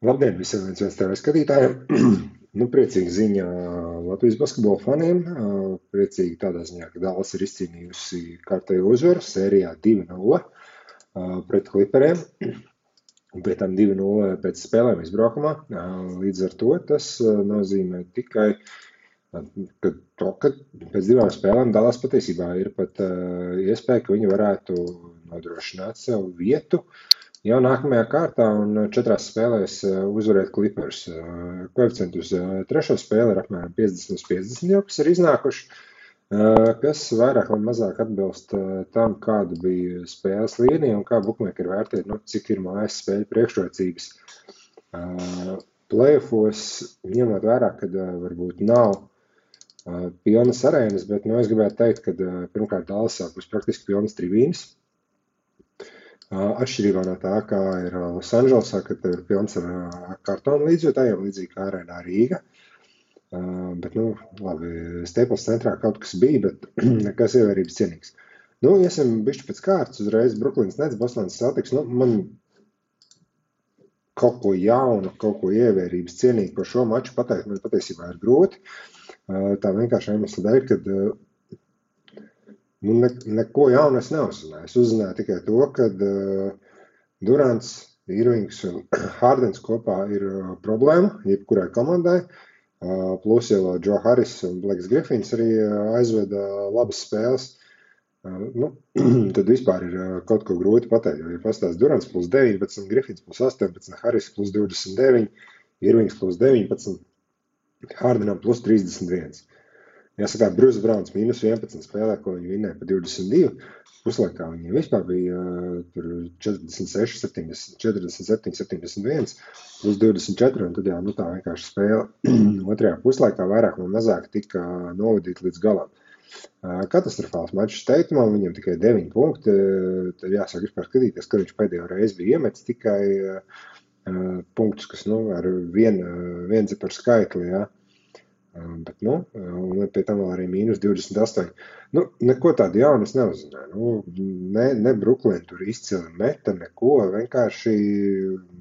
Labdien visiem viens TV skatītājiem! Priecīga ziņa Latvijas basketbola faniem. Priecīgi tādā ziņā, ka Dallas ir izcīnījusi kārtējo uzvaru sērijā 2-0 pret Clipperiem. Un pie tam 2-0 pēc spēlēm izbraukumā. Līdz ar to tas nozīmē tikai, ka pēc divām spēlēm Dallas patiesībā ir pat iespēja, ka viņi varētu nodrošināt sev vietu jau nākamajā kārtā un 4 spēlēs uzvarēt Clippers. Koeficienti uz trešo spēli ir apmēram 50/50 jau, kas ir iznākuši, kas vairāk vai mazāk atbilst tam, kāda bija spēles līnija un kā bukmekeri vērtē, cik ir mājas spēļu priekšrocības. Playoffos, ņemot vērā, kad varbūt nav pilnas arēnas, bet es gribētu teikt, ka pirmkārt Dallasā būs praktiski pilnas tribīnes. Atšķirībā no tā, kā ir Losandželosā, kad ir pilns ar kartonu līdzjūtājiem, līdzīgi kā arēnā Rīga. Bet, labi, Staples centrā kaut kas bija, bet nekas ievērības cienīgs. Iesim bišķi pēc kārtas, uzreiz Brooklyns Nets, Bostonas Celtics. Man kaut ko jaunu, kaut ko ievērības cienīgu par šo maču pateikt, man patiesībā ir grūti. Tā vienkārši iemesla dēļ, kad neko jaunu es neuzzināju. Es uzzināju tikai to, ka Durants, Irvings un Hardens kopā ir problēma jebkurai komandai. Plus jau Joe Harris un Blakes Griffins arī aizveda labas spēles. Tad vispār ir kaut ko grūti pateikt. Ja pastāst Durants plus 19, Griffins plus 18, Harris plus 29, Irvings plus 19, Hardenam plus 31. Jāsaka, Bruce Browns minus 11 spēlē, ko viņi vinnēja pa 22. Puslaikā viņiem vispār bija 47, 71, plus 24, un tad tā vienkārši spēle otrajā puslaikā vairāk vai mazāk tika novadīta līdz galam. Katastrofāls mačs Tatumam, viņam tikai 9 punkti, tad jāsaka vispār skatīties, kad viņš pēdējo reizi bija iemetis tikai punktus, kas ar vienu ciparu skaitli, jā. Bet, un pie tam vēl arī minus 28. Neko tādu jaunu es neuzzināju. Ne Brooklyn tur izcili meta, neko, vienkārši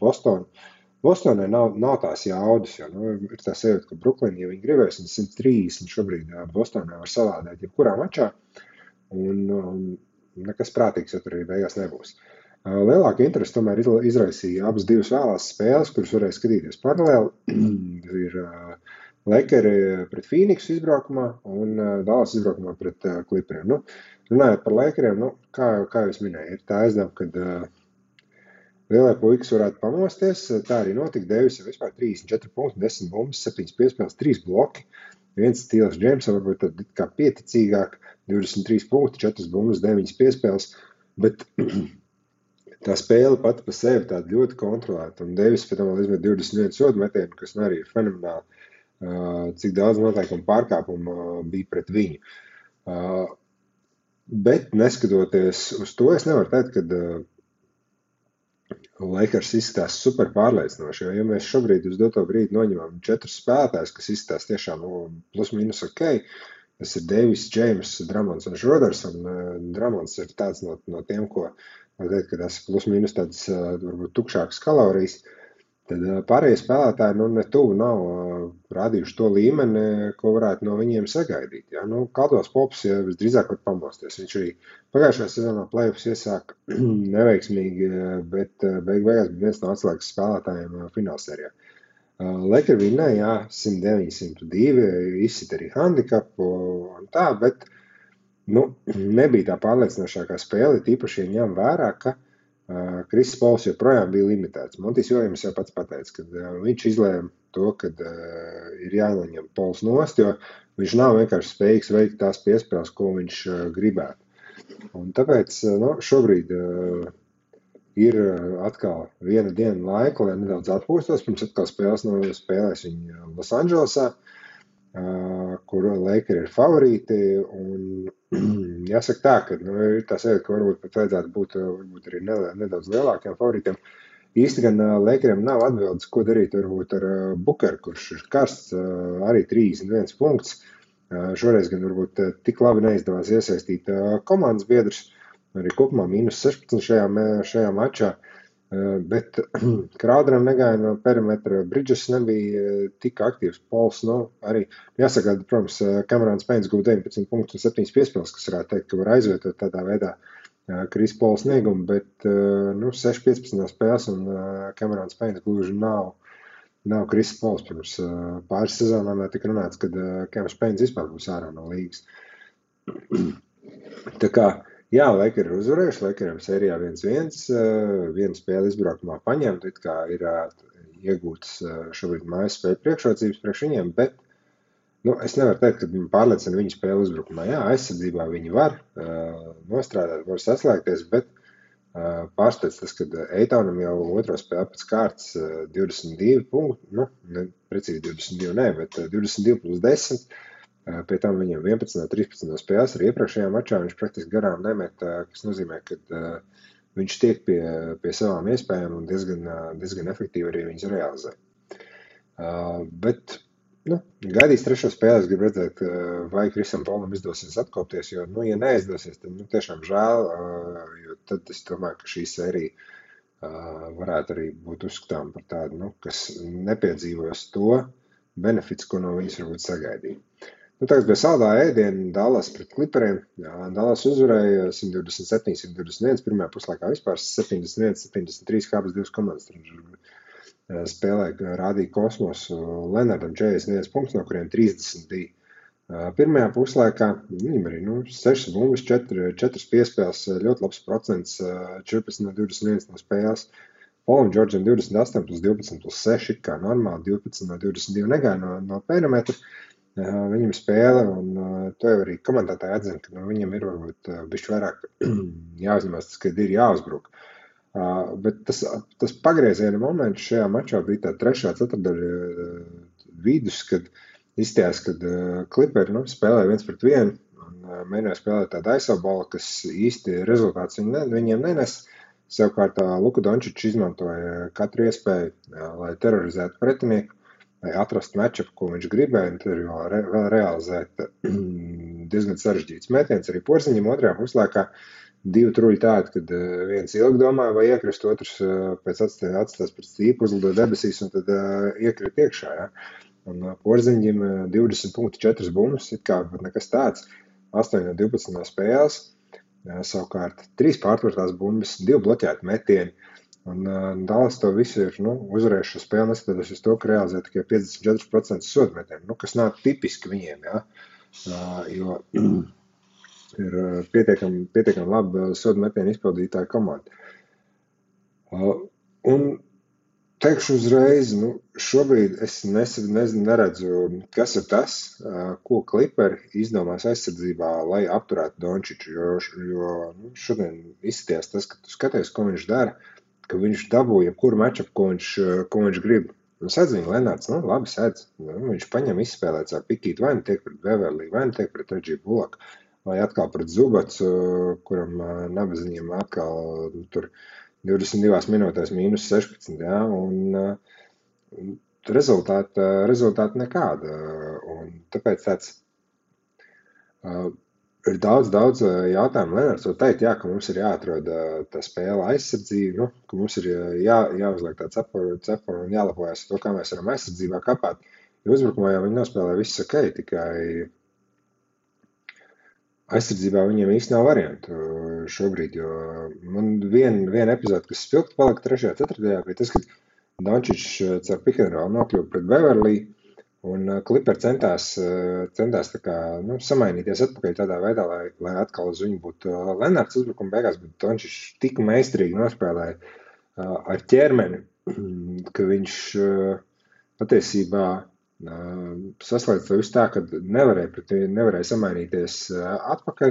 Bostonai nav tās jaudas, jo, ir tā sajūta, ka Brooklyn, ja viņi gribēs, 130 šobrīd Bostonai var salādēt jebkurā mačā, un nekas prātīgs, ja tur arī beigās nebūs. Lielāka interesi tomēr izraisīja abas divas vēlās spēles, kuras varēja skatīties paralēli. Ir Lakeri pret Phoenixu izbraukumā un Dallas izbraukumā pret Clipperiem. Runājot par Lakeriem, kā jūs minēju, ir tā aizdevuma, kad lielie puikas varētu pamosties. Tā arī notika. Devis jau vispār 34 punkti, 10 bumbas, 7 piespēles, 3 bloki. Viens Steals Jamesam varbūt tad kā pieticīgāk, 23 punkti, 4 bumbas, 9 piespēles, bet tā spēle pati pa sevi tāda ļoti kontrolēta. Un Devis pēc tam vēl izmet 21 sodu metienu, kas arī ir fenomenāli. Cik daudz noteikumu pārkāpumu bija pret viņu. Bet neskatoties uz to, es nevaru teikt, ka Lakers izskatās super pārliecinoši, jo ja mēs šobrīd uz doto brīdi noņemam 4 spēlētājus, kas izskatās tiešām plus minus ok, tas ir Davis, James, Drummonds un Schroders, un Drummonds ir tāds no tiem, ko var teikt, ka tas plus minus tāds varbūt tukšākas kalorijas. Tad pārējie spēlētāji ne tuvu nav rādījuši to līmeni, ko varētu no viņiem sagaidīt. Ja? Caldwell Pops ja visdrīzāk var pamosties. Viņš arī pagājušajā sezonā playoffs iesāk neveiksmīgi, bet beigās bija viens no atslēgas spēlētājiem finālsērijā. Lakers vinnēja 109-102, izsit arī handikapu un tā, bet nebija tā pārliecinošākā spēle, tīpaši ņem vērā, ka Kriss Pols joprojām bija limitēts. Montijs Viljams jau pats pateica, ka viņš izlēma to, ka ir jānoņem Pols nost, jo viņš nav vienkārši spējīgs veikt tās piespēles, ko viņš gribētu. Un tāpēc šobrīd ir atkal viena diena laika, lai nedaudz atpūstos, pirms atkal spēlēs viņu Losandželosā, kur Lakeri ir favorīti, un jāsaka tā, ka ir tā sajūta, ka varbūt pat vajadzētu būt varbūt arī nedaudz lielākiem favorītiem. Īsti gan Lakeriem nav atbildes, ko darīt varbūt ar Bookeru, kurš ir karsts, arī 31 punkts. Šoreiz gan varbūt tik labi neizdevās iesaistīt komandas biedrus, arī kopumā minus 16 šajā mačā. Bet Crowderam negāja no perimetra, Bridges nebija tik aktīvs, Pols, arī jāsaka, protams, Camerons Paynes guva 19 punktus un 7 piespēles, kas varētu teikt, ka var aizvietot tādā veidā Kris Pola sniegumu, bet 6-15 spēles un Camerons Paynes gluži nav Kris Pols. Pirms pāris sezonām tika runāts, kad Camerons Paynes vispār būs ārā no līgas. Tā kā, jā, Lakers ir uzvarējuši, Lakeriem sērijā 1-1, viena spēle izbraukumā paņemta, it kā ir iegūtas šobrīd mājas spēļu priekšrocības priekš viņiem, bet es nevaru teikt, ka viņi pārliecina viņu spēli uzbrukumā. Jā, aizsardzībā viņi var nostrādāt, var saslēgties, bet pārsteidz tas, ka Eitonam jau otro spēli pēc kārtas 22 punkti, precīzi 22 ne, bet 22 plus 10. Pie tam viņam 11 no 13 spēles arī iepriekšējā mačā viņš praktiski garām nemet, kas nozīmē, ka viņš tiek pie savām iespējām un diezgan efektīvi arī viņas realizē. Bet gaidīs trešo spēli, es gribu redzēt, vai Krisam Polam izdosies atkopties, jo, ja neizdosies, tad tiešām žēl, jo tad es domāju, ka šī sērija varētu arī būt uzskatām par tādu, kas nepiedzīvos to benefits, ko no viņas varbūt sagaidīja. Tagad bija saldā ēdiena Dallas pret Clipperiem. Dallas uzvarēja 127-121, pirmajā puslaikā vispār 71-73 kāpēc divas komandas. Spēlē rādīja kosmosu Lenardam 41 punkts, no kuriem 30 bija pirmajā puslaikā. Viņam arī 6 bumbas, 4 piespēles, ļoti labs procents, 14 no 21 no spēles. Polam Džordžam 28 plus 12 plus 6, kā normāli, 12 no 22 negāja no perimetra. Viņam spēle, un to jau arī komentētāji atzina, ka viņam ir varbūt bišķi vairāk jāuzņemās tas, kad ir jāuzbruk. Bet tas pagrieziena moments šajā mačā bija tā trešā ceturdaļa vidus, kad izstājās, kad Clipperi spēlēja 1-1 un mēģināja spēlēt tādu aizsaubalu, kas īsti rezultāts viņiem nenes. Savukārt Luka Dončičs izmantoja katru iespēju, lai terorizētu pretinieku, lai atrastu matchup, ko viņš gribēja, un tur vēl realizēt diezgan sarežģīts metiens. Arī Porziņam otrajā puslaikā 2 truļi tādi, kad viens ilgi domāja, vai iekrist, otrs pēc atstās pēc stīpu, uzlidoja debesīs, un tad iekrīt iekšā. Ja? Un Porziņam 20 punkti, 4 bumbas, it kā nekas tāds, 8 no 12 no spēles, savukārt 3 pārtvartās bumbas, 2 bloķēti metieni. Un Dallas to visu ir uzvarējuši spēli, neskatoties uz to, ka realizē tikai 54% sodmetienu, kas nav tipiski viņiem, ja? Jo ir pietiekami labi sodmetienu izpildītāja komanda. Un teikšu uzreiz, šobrīd es neredzu, kas ir tas, ko Clipperi izdomās aizsardzībā, lai apturētu Dončiču, jo šodien izskatījās tas, ka tu skaties, ko viņš dara, ka viņš dabūja jebkuru matchup, ko viņš grib. Sēdz viņa Lenards, labi sēdz. Viņš paņem izspēlēt savu pikītu, vai nu tiek pret Beverly, vai nu tiek pret Reggie Bullock, vai atkal pret Zubats, kuram nabaziņiem atkal tur 22 minūtēs mīnus 16, ja, un rezultāti nekāda. Un tāpēc tāds ir daudz jautājumu. Lenards var teikt, ka mums ir jāatrod tā spēle aizsardzība, ka mums ir jāuzliek tā cepura un jālapojas to, kā mēs varam aizsardzībā kapāt. Jo uzbrukumā jau viņi nospēlē viss ok, tikai aizsardzībā viņiem īsti nav variantu šobrīd, jo man viena epizode, kas spilgti palika 3. ceturtajā, bija tas, ka Dončičs caur pick and roll nokļuva pret Beverly, un Clipperi centās tā kā, samainīties atpakaļ tādā veidā, lai atkal uz viņu būtu Lenards uzbrukuma beigās, bet Dončičs tik meistarīgi nospēlēja ar ķermeni, ka viņš patiesībā saslēdz to visu tā, ka nevarēja samainīties atpakaļ,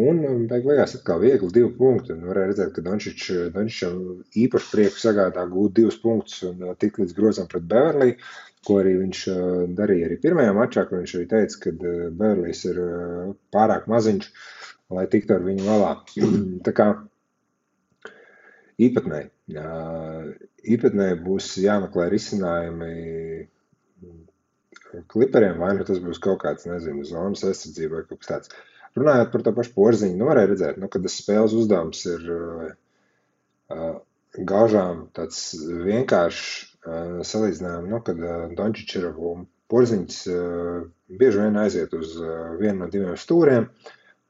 un beigās atkal viegli 2 punkti, un varēja redzēt, ka Dončičam īpaši prieku sagādā gūt 2 punktus un tik līdz grozam pret Beverly, ko arī viņš darīja arī pirmajā mačā, kur viņš arī teica, ka Beverlys ir pārāk maziņš, lai tiktu ar viņu galā. Tā kā īpatnē būs jāmeklē risinājumi Clipperiem, vai nu tas būs kaut kāds, zonas aizsardzība vai kaut kas tāds. Runājot par to pašu Porziņu, varēja redzēt, kad tas spēles uzdevums ir gaužām tāds vienkāršs salīdzinājums, kad Dončić ir Porziņš bieži vien aiziet uz vienu no diviem stūriem,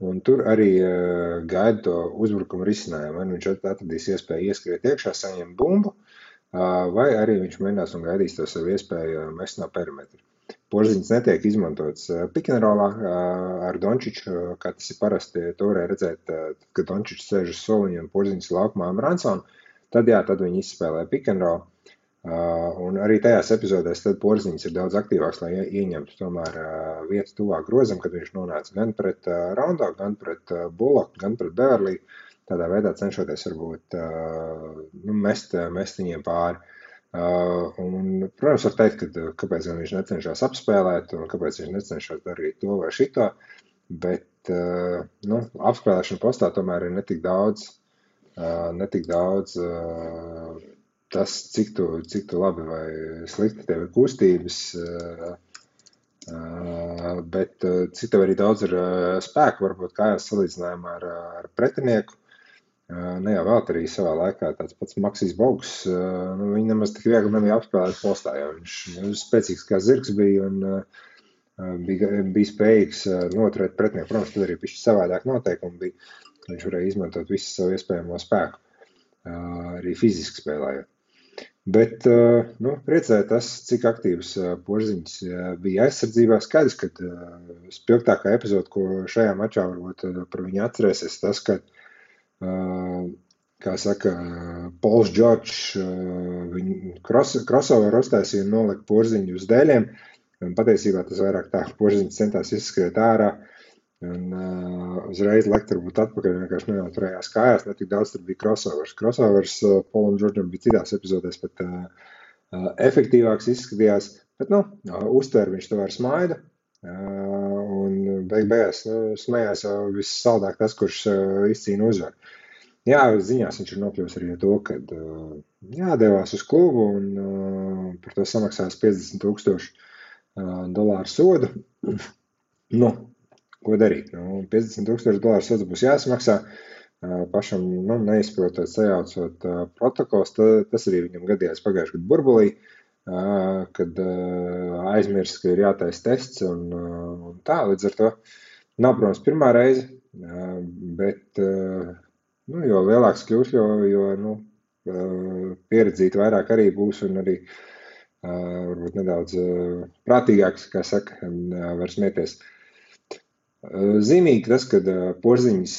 un tur arī gaida to uzbrukumu risinājumu. Vai nu viņš atradīs iespēju ieskriet iekšā, saņemt bumbu, vai arī viņš mēģinās un gaidīs to savu iespēju mest no perimetra. Porziņš netiek izmantots pikenrolā ar Dončiču, kā tas ir parasti. To varēja redzēt, kad Dončičs sēž uz soliņa un Porziņš laukumā ar Ransonu. Tad viņi izspēlē pikenrolu. Un arī tajās epizodēs tad Porziņš ir daudz aktīvāks, lai ieņemtu tomēr vietu tuvāk grozam, kad viņš nonāca gan pret Rondo, gan pret Bullock, gan pret Beverly. Tādā veidā cenšoties varbūt mest viņiem pāri. Un, protams, var teikt, kāpēc viņš necenšas apspēlēt un kāpēc viņš necenšas darīt to vai šito, bet apspēlēšana postā tomēr ir netik daudz tas, cik tu labi vai slikti tev ir kustības, bet cik tev arī daudz ir spēku, varbūt kājās salīdzinājumā ar pretinieku. Ne jau vēl arī savā laikā tāds pats Maksijs Bogs, viņi nemaz tik viegli nebija apspēlēt postā, jo viņš spēcīgs kā zirgs bija un bija spējīgs noturēt pretinieku. Protams, tad arī pišķi savādāk noteikumi bija, viņš varēja izmantot visu savu iespējamo spēku, arī fiziski spēlējot. Bet, priecēja tas, cik aktīvs Porziņš bija aizsardzībā. Skaidrs, ka spilgtākā epizode, ko šajā mačā varbūt par viņu atcerēsies, tas, ka kā saka, Pols Džordžs viņu crossover uztaisīja un nolika Porziņu uz dēļiem. Un patiesībā tas vairāk tā, ka Porziņš centās izskriet ārā un uzreiz lekt varbūt atpakaļ, vienkārši nenoturējās kājās, ne tik daudz tur bija crossovers. Crossovers Polam Džordžam bija citās epizodēs pat efektīvāks izskatījās, bet, uztver viņš to ar smaidu. Un beigās smējās jau vissaldāk tas, kurš izcīna uzvaru. Jā, ziņās viņš ir nokļuvis arī to, kad devās uz klubu un par to samaksās $50,000 sodu. Ko darīt? $50,000 sods būs jāsamaksā. Pašam neizprotot, sajaucot protokols, tas arī viņam gadījās pagājušajā gadu burbulī, kad aizmirst, ka ir jātais tests un tā, līdz ar to nav, protams, pirmā reize, bet jo lielāks kļūs, jo pieredzīt vairāk arī būs un arī varbūt nedaudz prātīgāks, kā saka, var smieties. Zīmīgi tas, kad Porziņš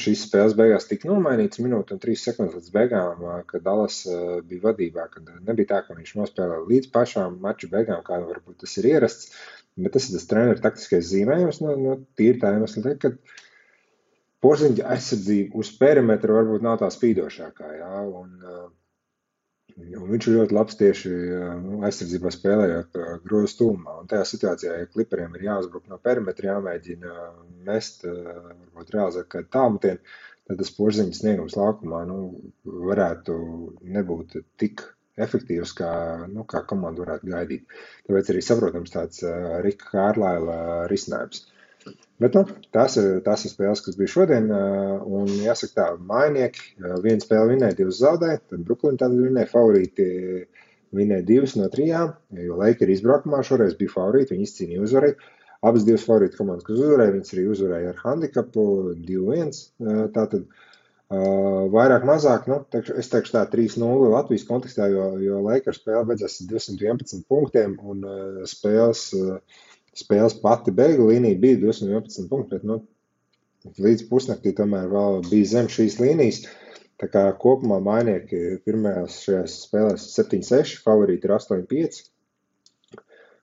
šīs spēles beigās tika nomainīts minūte un 3 sekundes līdz beigām, kad Dallas bija vadībā, kad nebija tā, ka viņš nospēlē līdz pašām maču beigām, kā varbūt tas ir ierasts, bet tas ir tas treneru taktiskais zīmējums, tīri tā iemesla, kad Porziņa aizsardzība uz perimetra varbūt nav tā spīdošākā, jā, un viņš ir ļoti labs tieši aizsardzībā spēlējot grozu tūmā. Un tajā situācijā, ja kliperiem ir jāuzbruk no perimetra, jāmēģina mest, varbūt realizēt kādu tālmetienu, tad tas Porziņas sniegums laukumā varētu nebūt tik efektīvs, kā komanda varētu gaidīt. Tāpēc arī saprotams tāds Rika Kārlaila risinājums. Bet tās ir spēles, kas bija šodien, un jāsaka tā, mainieki, viena spēle vinēja, 2 zaudēja, tad Brooklyn tad vinēja, favorīti vinēja 2 no 3, jo Lakers izbraukumā šoreiz bija favorīti, viņi izcīnīja uzvarēju. Abas 2 favorīti komandas, kas uzvarēja, viņas arī uzvarēja ar handikapu 2-1, tātad vairāk mazāk, es teikšu tā 3-0 Latvijas kontekstā, jo Lakers spēle beidzās 211 punktiem un spēles pati beigu līnija bija 211 punkti, bet līdz pusnaktī tomēr vēl bija zem šīs līnijas. Tā kā kopumā mainieki pirmajās šajās spēlēs 7-6, favorīti ir 8-5.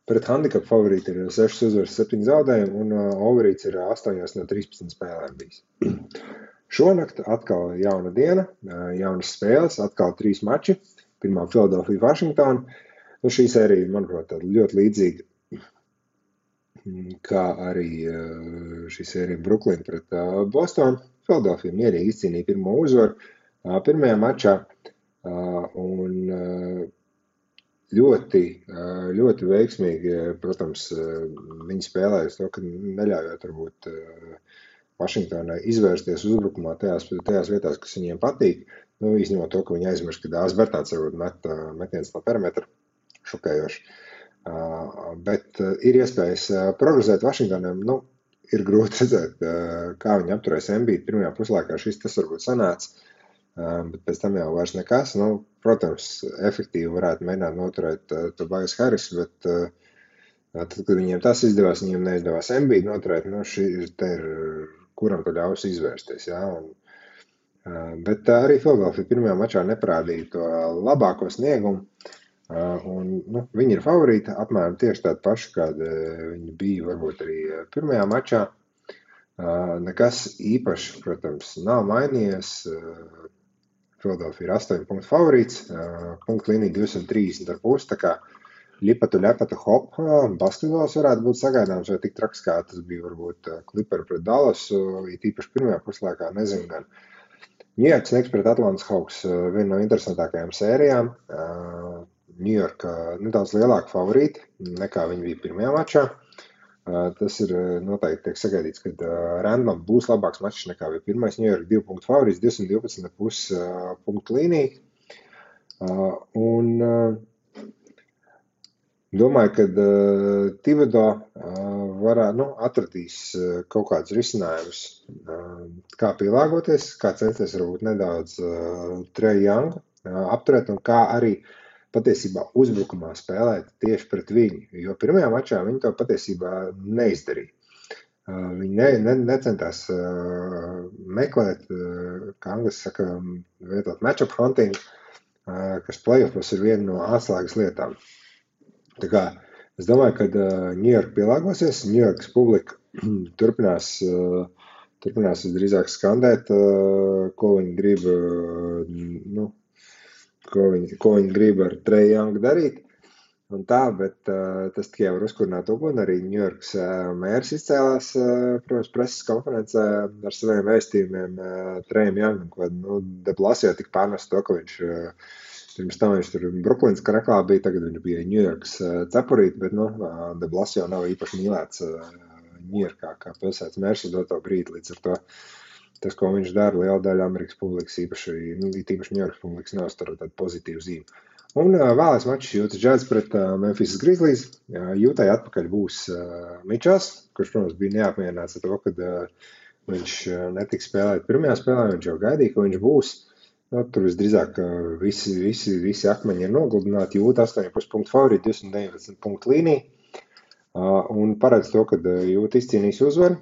Pret handikapu favorīti ir 6 uzvaras, 7 zaudējumi un overīts ir 8 no 13 spēlēm bijis. Šonakt atkal jauna diena, jaunas spēles, atkal 3 mači. Pirmā Philadelphia, Washington. Šī sērija, manuprāt, ļoti līdzīga, kā arī šī sērija Brooklyn pret Bostonu. Philadelphia mierīgi izcīnīja pirmo uzvaru pirmajā mačā un ļoti veiksmīgi, protams, viņi spēlējas to, ka neļaujot varbūt Vašingtonai izvērsties uzbrukumā tajās vietās, kas viņiem patīk. Izņemot to, ka viņi aizmirst, ka Dāvis Bertāns varbūt metiens no perimetra šokējoši. Bet ir iespējas progresēt Vašingtonam. Ir grūti redzēt, kā viņi apturēs Embiidu pirmajā puslaikā. Tas varbūt sanāca, bet pēc tam jau vairs nekas. Protams, efektīvi varētu mēģināt noturēt Tobias Harris, bet tad, kad viņiem tas izdevās, viņiem neizdevās Embiidu noturēt, te ir kuram to ļaus izvērsties. Ja? Bet arī Philadelphia pirmajā mačā neparādīja to labāko sniegumu. Viņi ir favorīti, apmēram tieši tādi paši, kādi viņi bija varbūt arī pirmajā mačā. Nekas īpaši, protams, nav mainījies. Philadelphia ir 8 punktu favorīts, punktu līnija 230,5, tā kā ļepatu hop, basketbols varētu būt sagaidāms, vai tik traks, kā tas bija varbūt Clipperi pret Dallasu, it īpaši pirmajā puslaikā, nezinu gan. New York Knicks pret Atlantas Hawks, viena no interesantākajām sērijām. New York nedaudz lielāka favorīti nekā viņi bija pirmajā mačā. Tas ir noteikti tiek sagaidīts, ka Randlam būs labāks mačs nekā bija pirmais. New York 2 punktu favorīts, 212,5 punktu līnija. Domāju, ka Thibodeau atradīs kaut kādus risinājumus, kā pielāgoties, kā censties varbūt nedaudz Trae Youngu apturēt un kā arī patiesībā uzbrukumā spēlēt tieši pret viņu, jo pirmajā mačā viņi to patiesībā neizdarīja. Viņi necentās meklēt, kā angļuiski saka, vietot matchup hunting, kas playoffos ir viena no atslēgas lietām. Tā kā es domāju, ka New York pielāgosies, New Yorkas publika turpinās visdrīzāk skandēt, ko viņi grib, ko viņi grib ar Trae Youngu darīt. Un tā, bet tas tikai var uzkurināt uguni. Arī New Yorkas mērs izcēlās, protams, preses konferencē ar saviem vēstījumiem Trae Youngam, ko De Blasio tik pārnest to, ka viņš pirms tam viņš tur Brooklynas karaklā bija, tagad viņš bija New Yorkas cepurīt, bet De Blasio nav īpaši mīlēts New Yorkā kā pilsētas mērs uz doto brīdi, līdz ar to tas, ko viņš dara, liela daļa Amerikas publikas, īpaši New Yorkas publikas neuztur tādu pozitīvu zīmi. Un vēlais mačs Utah Jazz pret Memphis Grizzlies. Utah atpakaļ būs Mičels, kurš, protams, bija neapmierināts ar to, ka viņš netiks spēlēt pirmajā spēlē, viņš jau gaidīja, ka viņš būs. Tur visdrīzāk visi akmeņi ir nogludināti, Utah 8,5 punktu favorīti, 219 punktu līnija. Un paredz to, ka Utah izcīnīs uzvaru,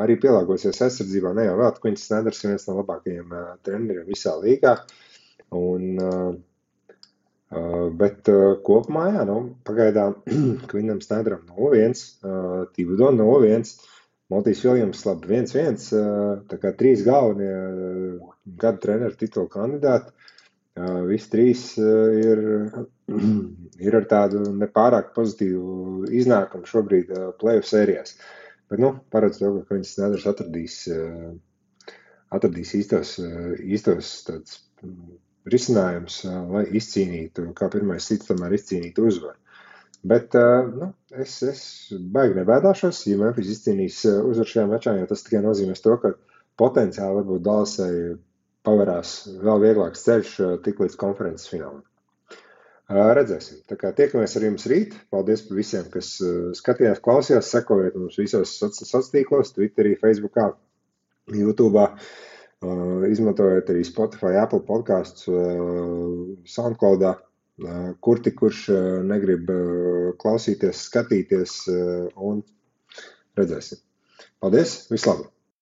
arī pielāgosies aizsardzībā, ne jau vēl, Quincy Snyders ir viens no labākajiem treneriem visā līgā. Bet kopumā, pagaidām Quinam Snyderam 0-1, Thibodeau 0-1, Monty's Williams labi 1-1, tā kā 3 galvenie gada treneru titulu kandidāti. Visi 3 ir ar tādu nepārāk pozitīvu iznākumu šobrīd playoff sērijās. Bet, paredz to, ka Quincy Snyders atradīs īstos tāds risinājums, lai izcīnītu, kā pirmais cits tomēr izcīnītu uzvaru. Bet es baigi nebēdāšos, ja Memphis izcīnīs uzvaru šajā mačā, jo tas tikai nozīmēs to, ka potenciāli varbūt Dallasai pavarās vēl vieglāks ceļš tik līdz konferences finālam. Redzēsim. Tā kā tiekamies ar jums rīt. Paldies par visiem, kas skatījās, klausījās, sekojiet mums visos sociālos tīklos, Twitterī, Facebookā, YouTube'ā. Izmantojot arī Spotify, Apple podcasts, SoundCloudā, kurš negrib klausīties, skatīties un redzēsim. Paldies, vislabāk!